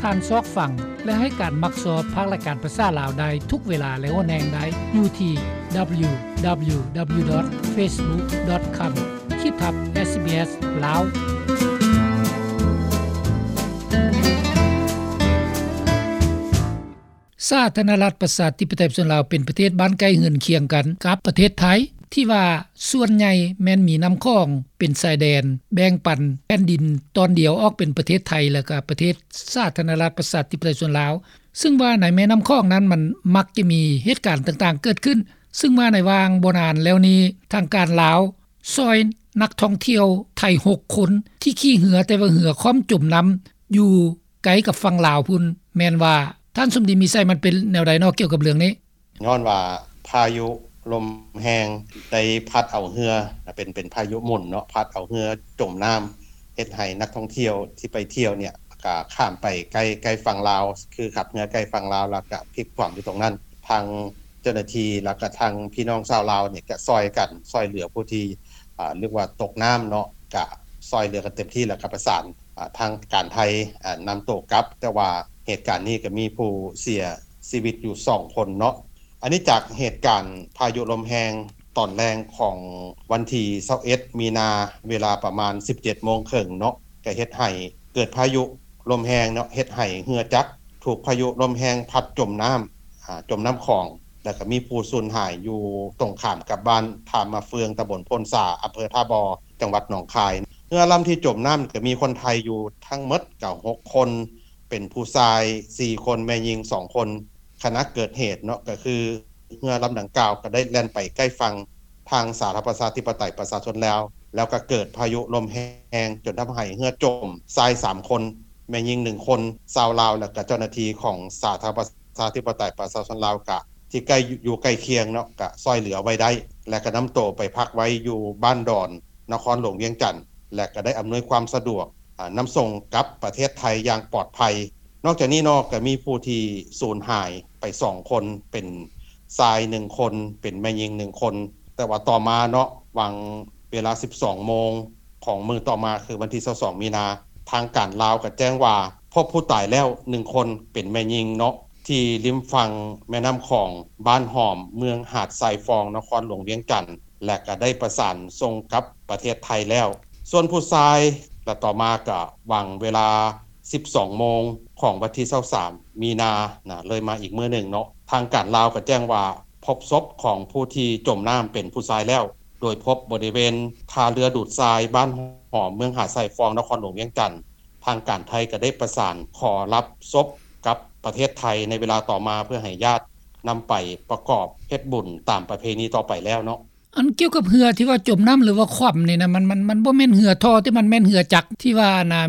ານຊອກຟັງ ແລະ ໃຫ້ການມັກຊອບພາກລາຍການພາສາລາວໄດ້ທຸກເວລາ ແລະ ຫົນແຫ່ງໄດ້ຢູ່ທີ່ www.facebook.com ຂີດທັບ SBS ລາວ. ສາທາລະນະລັດ ປະຊາທິປະໄຕ ປະຊາຊົນລາວ ເປັນປະເທດບ້ານໃກ້ເຮືອນຄຽງກັນກັບປະເທດໄທ ທີ່ວ່າສ່ວນໃຫຍ່ແມ່ນມີນ້ຳຂອງເປັນຊາຍແດນ ແບ່ງປັນແຜ່ນດິນຕອນດຽວອອກເປັນປະເທດໄທ ແລະ ກະປະເທດສາທາລະນະລັດ ປະຊາທິປະໄຕ ປະຊາຊົນລາວ. ຊຶ່ງວ່າໃນແມ່ນ້ຳຂອງນັ້ນ ມັນມັກຈະມີເຫດການຕ່າງໆເກີດຂຶ້ນ, ຊຶ່ງວ່າໃນຫວ່າງບໍ່ນານແລ້ວນີ້ ທາງການລາວຊ່ອຍນັກທ່ອງທ່ຽວໄທຫົກຄົນ ທີ່ຂີ່ເຮືອ ແຕ່ວ່າເຮືອຂອມຈົມນ້ຳຢູ່ ໃກ້ກັບຝັ່ງລາວພຸ້ນ. ແມ່ນວ່າ ທ່ານສົມດີ ມີໄຊ ມັນເປັນແນວໃດເນາະ ກ່ຽວກັບເລື່ອງນີ້? ຍ້ອນວ່າພາຍຸລົມແຮງໄດ້ພັດເອົາເຮືອ ເປັນ ເປັນພາຍຸໝຸນເນາະ ພັດເອົາເຮືອຈົມນ້ຳ ເຮັດໃຫ້ນັກທ່ອງທ່ຽວທີ່ໄປທ່ຽວເນ່ຍ ກະຂ້າມໄປໃກ້ ໃກ້ຝັ່ງລາວ ຄືຂັບເຮືອໃກ້ຝັ່ງລາວ ແລ້ວກະພິກຄວ່ຳຢູ່ຕົງນັ້ນ. ທາງເຈົ້າໜ້າທີ່ ແລ້ວກະທາງພີ່ນ້ອງຊາວລາວເນ່ຍ ກະຊ່ອຍກັນ ຊ່ອຍເຫຼືອຜູ້ທີ່ ອາ ເອີ້ນວ່າຕົກນ້ຳເນາະ ກະຊ່ອຍເຫຼືອກັນເຕັມທີ່ ແລ້ວກະປະສານ ອາ ທາງການໄທ ອາ ນຳໂຕກັບ. ແຕ່ວ່າເຫດການນີ້ກະມີຜູ້ເສຍຊີວິດຢູ່ສອງຄົນເນາະ. ອັນນີ້ຈາກເຫດການພາຍຸລົມແຮງຕອນແລງຂອງວັນທີຊາວເອັດ ມີນາ ເວລາປະມານສິບເຈັດໂມງເຄິ່ງເນາະ ກະເຮັດໃຫ້ເກີດພາຍຸລົມແຮງເນາະ ເຮັດໃຫ້ເຮືອຈັກຖືກພາຍຸລົມແຮງພັດຈົມນ້ຳ ອາ ຈົມນ້ຳຂອງ ແລ້ວກະມີຜູ້ສູນຫາຍຢູ່ຕົງຂ້າມກັບບ້ານທ່າມະເຟືອງ ຕຳບົນໂພນສາ ອຳເພີທ່າບໍ່ ຈັງຫວັດໜອງຄາຍ. ເຮືອລຳທີ່ຈົມນ້ຳກະມີຄົນໄທຢູ່ທັງໝົດກະຫົກຄົນ ເປັນຜູ້ຊາຍສີ່ຄົນ ແມ່ຍິງສອງຄົນ. ຂະນະເກີດເຫດເນາະ ກະຄືເຮືອລຳດັ່ງກ່າວກະໄດ້ແລ່ນໄປໃກ້ຝັ່ງທາງສາທາລະນະລັດ ປະຊາທິປະໄຕ ປະຊາຊົນລາວ ແລ້ວກະເກີດພາຍຸລົມແຮງຈົນທຳໃຫ້ເຮືອຈົມ, ຊາຍສາມຄົນ ແມ່ຍິງໜຶ່ງຄົນ ຊາວລາວ ແລ້ວກະເຈົ້າໜ້າທີ່ຂອງສາທາລະນະລັດ ປະຊາທິປະໄຕ ປະຊາຊົນລາວ ກະທີ່ໃກ້ ຢູ່ໃກ້ຄຽງເນາະ ກະຊ່ອຍເຫຼືອໄວ້ໄດ້ ແລະ ກະນຳໂຕໄປພັກໄວ້ຢູ່ບ້ານດອນ ນະຄອນຫຼວງວຽງຈັນ ແລະ ກະໄດ້ອຳນວຍຄວາມສະດວກ ອາ ນຳສົ່ງກັບປະເທດໄທຢ່າງປອດໄພ. ນອກຈາກນີ້ເນາະ ກະມີຜູ້ທີ່ສູນຫາຍໄປສອງຄົນ ເປັນຊາຍໜຶ່ງຄົນ ເປັນແມ່ຍິງໜຶ່ງຄົນ. ແຕ່ວ່າຕໍ່ມາເນາະ ຫວ່າງເວລາສິບສອງໂມງຂອງມື້ຕໍ່ມາ ຄືວັນທີຊາວສອງມີນາ ທາງການລາວກະແຈ້ງວ່າພົບຜູ້ຕາຍແລ້ວໜຶ່ງຄົນ ເປັນແມ່ຍິງເນາະ ທີ່ລິມຝັ່ງແມ່ນ້ຳຂອງ ບ້ານຫອມ ເມືອງຫາດຊາຍຟອງ ນະຄອນຫຼວງວຽງຈັນ ແລະ ກະໄດ້ປະສານສົ່ງກັບປະເທດໄທແລ້ວ. ສ່ວນຜູ້ຊາຍ ແລະ ຕໍ່ມາກະຫວ່າງເວລາສິບສອງໂມງຂອງວັນທີຊາວສາມມີນານະ ເລີຍມາອີກມື້ໜຶ່ງເນາະ ທາງການລາວກະແຈ້ງວ່າພົບສົບຂອງຜູ້ທີ່ຈົມນ້ຳເປັນຜູ້ຊາຍແລ້ວ ໂດຍພົບບໍລິເວນທ່າເຮືອດູດຊາຍ ບ້ານຫອມ ເມືອງຫາດຊາຍຟອງ ນະຄອນຫຼວງວຽງຈັນ. ທາງການໄທກະໄດ້ປະສານຂໍຮັບສົບກັບປະເທດໄທໃນເວລາຕໍ່ມາ ເພື່ອໃຫ້ຍາດນຳໄປປະກອບເຮັດບຸນຕາມປະເພນີຕໍ່ໄປແລ້ວເນາະ. ອັນກ່ຽວກັບເຮືອທີ່ວ່າຈົມນ້ຳ ຫຼືວ່າຂວ້ຳນີ້ນະ ມັນ ມັນ ມັນບໍ່ແມ່ນເຮືອທໍ່ ແຕ່ມັນແມ່ນເຮືອຈັກທີ່ວ່າອັນນ່າ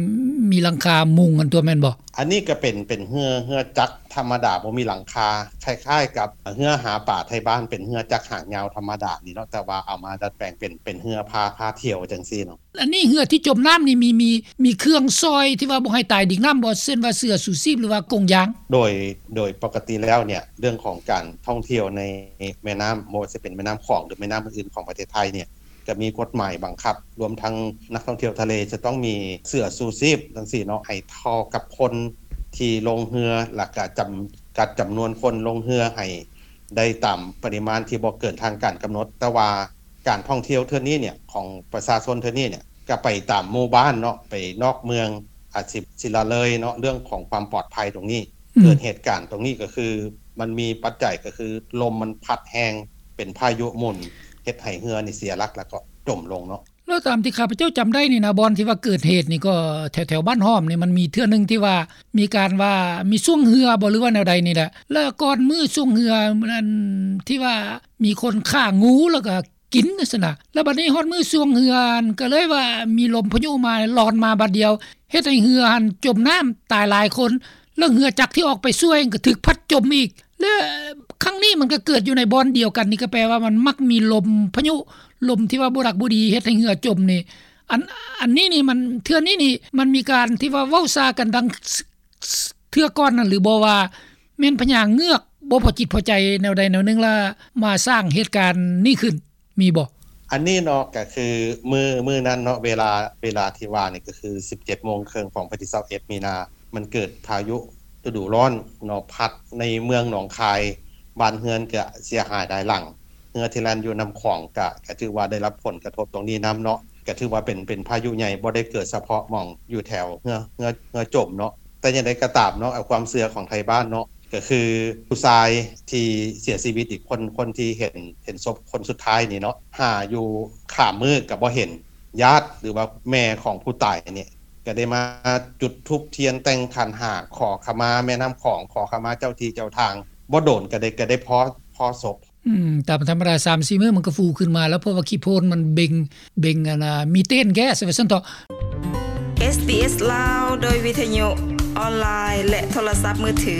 ມີຫຼັງຄາມຸງຫັ້ນຕົວະ ແມ່ນບໍ່? ອັນນີ້ກະເປັນ ເປັນເຮືອ ເຮືອຈັກທຳມະດາ ບໍ່ມີຫຼັງຄາ ຄ້າຍໆກັບເຮືອຫາປາໄທບ້ານ ເປັນເຮືອຈັກຫາງຍາວທຳມະດານີ້ເນາະ ແຕ່ວ່າເອົາມາດັດແປງເປັນ ເປັນເຮືອພາ ພາທ່ຽວຈັ່ງຊີ້ເນາະ. ອັນນີ້ເຮືອທີ່ຈົມນ້ຳນີ້ ມີ ມີ ມີເຄື່ອງຊ່ອຍທີ່ວ່າບໍ່ໃຫ້ຕາຍດິງນ້ຳບໍ່? ເຊັ່ນວ່າເສື້ອຊູຊີບ ຫຼືວ່າກົງຢາງ? ໂດຍ ໂດຍປົກກະຕິແລ້ວເນ່ຍ ເລື່ອງຂອງການທ່ອງທ່ຽວໃນແມ່ນ້ຳ ບໍ່ວ່າຈະເປັນແມ່ນ້ຳຂອງ ຫຼື ແມ່ນ້ຳອື່ນໆຂອງປະເທດໄທເນ່ຍ ກະມີກົດໝາຍບັງຄັບ ລວມທັງນັກທ່ອງທ່ຽວທະເລຈະຕ້ອງມີເສື້ອຊູຊີບຈັ່ງຊີ້ເນາະ ໃຫ້ເທົ່າກັບຄົນທີ່ລົງເຮືອ ແລ້ວກະຈຳກັດຈຳນວນຄົນລົງເຮືອໃຫ້ໄດ້ຕາມປະລິມານທີ່ບໍ່ເກີນທາງການກຳນົດ. ແຕ່ວ່າການທ່ອງທ່ຽວເທື່ອນີ້ເນ່ຍ ຂອງປະຊາຊົນເທື່ອນີ້ເນ່ຍ ກະໄປຕາມໝູ່ບ້ານເນາະ ໄປນອກເມືອງ ອາດຊິ ຊິລະເລີຍເນາະ ເລື່ອງຂອງຄວາມປອດໄພຕົງນີ້. ອືມ ເກີດເຫດການຕົງນີ້ກະຄື ມັນມີປັດໄຈກະຄື ລົມມັນພັດແຮງ ເປັນພາຍຸໝຸນ ເຮັດໃຫ້ເຮືອນີ້ເສຍຫຼັກ ແລ້ວກໍຈົມລົງເນາະ. ແລ້ວຕາມທີ່ຂ້າພະເຈົ້າຈຳໄດ້ນີ້ນະ ບ່ອນທີ່ວ່າເກີດເຫດນີ້ກໍແຖວໆບ້ານຫອມນີ້ ມັນມີເທື່ອໜຶ່ງທີ່ວ່າມີການວ່າມີຊ່ວງເຮືອບໍ່ ຫຼືວ່າແນວໃດນີ້ແຫຼະ ແລ້ວກ່ອນມື້ຊ່ວງເຮືອນັ້ນ ທີ່ວ່າມີຄົນຂ້າງູ ແລ້ວກໍ ກິນຊັ້ນນະ. ແລ້ວບັດນີ້ຮອດມື້ຊ່ວງເຮືອຫັ້ນ ກໍເລີຍວ່າມີລົມພາຍຸມາ ລອນມາບາດດຽວ ເຮັດໃຫ້ເຮືອຫັ້ນຈົມນ້ຳຕາຍຫຼາຍຄົນ ແລ້ວເຮືອຈັກທີ່ອອກໄປຊ່ວຍກໍຖືກພັດຈົມອີກ. ແລະ ຄັ້ງນີ້ມັນກໍເກີດຢູ່ໃນບ່ອນດຽວກັນນີ້ ກໍແປວ່າມັນມັກມີລົມພາຍຸ ລົມທີ່ວ່າບໍ່ດັກບໍ່ດີເຮັດໃຫ້ເຮືອຈົມນີ້. ອັນ ອັນນີ້ນີ້ມັນ ເທື່ອນີ້ນີ້ມັນມີການທີ່ວ່າເວົ້າຊາກັນດັ່ງ ເທື່ອກ່ອນນັ້ນຫຼືບໍ່ ວ່າແມ່ນພະຍາເງືອກບໍ່ພໍຈິດພໍໃຈແນວໃດແນວໜຶ່ງ ແລ້ວມາສ້າງເຫດການນີ້ຂຶ້ນ ມີບໍ່? ອັນນີ້ເນາະ ກະຄືມື້ ມື້ນັ້ນເນາະ ເວລາ ເວລາທີ່ວ່ານີ້ກະຄືສິບເຈັດໂມງເຄິ່ງຂອງວັນທີຊາວເອັດມີນາ ມັນເກີດພາຍຸລະດູຮ້ອນເນາະ ພັດໃນເມືອງໜອງຄາຍ ບ້ານເຮືອນກະເສຍຫາຍຫຼາຍຫຼັງ ເຮືອທີ່ແລ່ນຢູ່ນ້ຳຂອງກະ ກະຖືວ່າໄດ້ຮັບຜົນກະທົບຕົງນີ້ນຳເນາະ ກະຖືວ່າເປັນ ເປັນພາຍຸໃຫຍ່ ບໍ່ໄດ້ເກີດສະເພາະໝ່ອງຢູ່ແຖວເຮືອ ເຮືອ ເຮືອຈົມເນາະ. ແຕ່ຈັ່ງໃດກໍຕາມເນາະ ເອົາຄວາມເຊື່ອຂອງໄທບ້ານເນາະ ກໍຄືຜູ້ຊາຍທີ່ເສຍຊີວິດອີກຄົນ ຄົນທີ່ເຫັນ ເຫັນສົບຄົນສຸດທ້າຍນີ້ເນາະ ຫາຢູ່ຂ້າມມື້ກໍບໍ່ເຫັນ ຍາດ ຫຼືວ່າແມ່ຂອງຜູ້ຕາຍນີ້ ກໍໄດ້ມາຈຸດທູບທຽນ ແຕ່ງຂັນຫ້າ ຂໍຂະມາແມ່ນ້ຳຂອງ ຂໍຂະມາເຈົ້າທີ່ເຈົ້າທາງ ບໍ່ດົນກໍໄດ້ ກໍໄດ້ພໍ້ ພໍ້ສົບ. ອືມ ຕາມທຳມະດາສາມສີ່ມື້ມັນກໍຟູຂຶ້ນມາແລ້ວ ເພາະວ່າຂີ້ໂພນມັນເບັ່ງ ເບັ່ງອັນນ່າ ມີເຕນແກັສວ່າຊັ້ນເຖາະ. ເອສບີເອສລາວ ໂດຍວິທະຍຸອອນລາຍ ແລະ ໂທລະສັບມືຖື.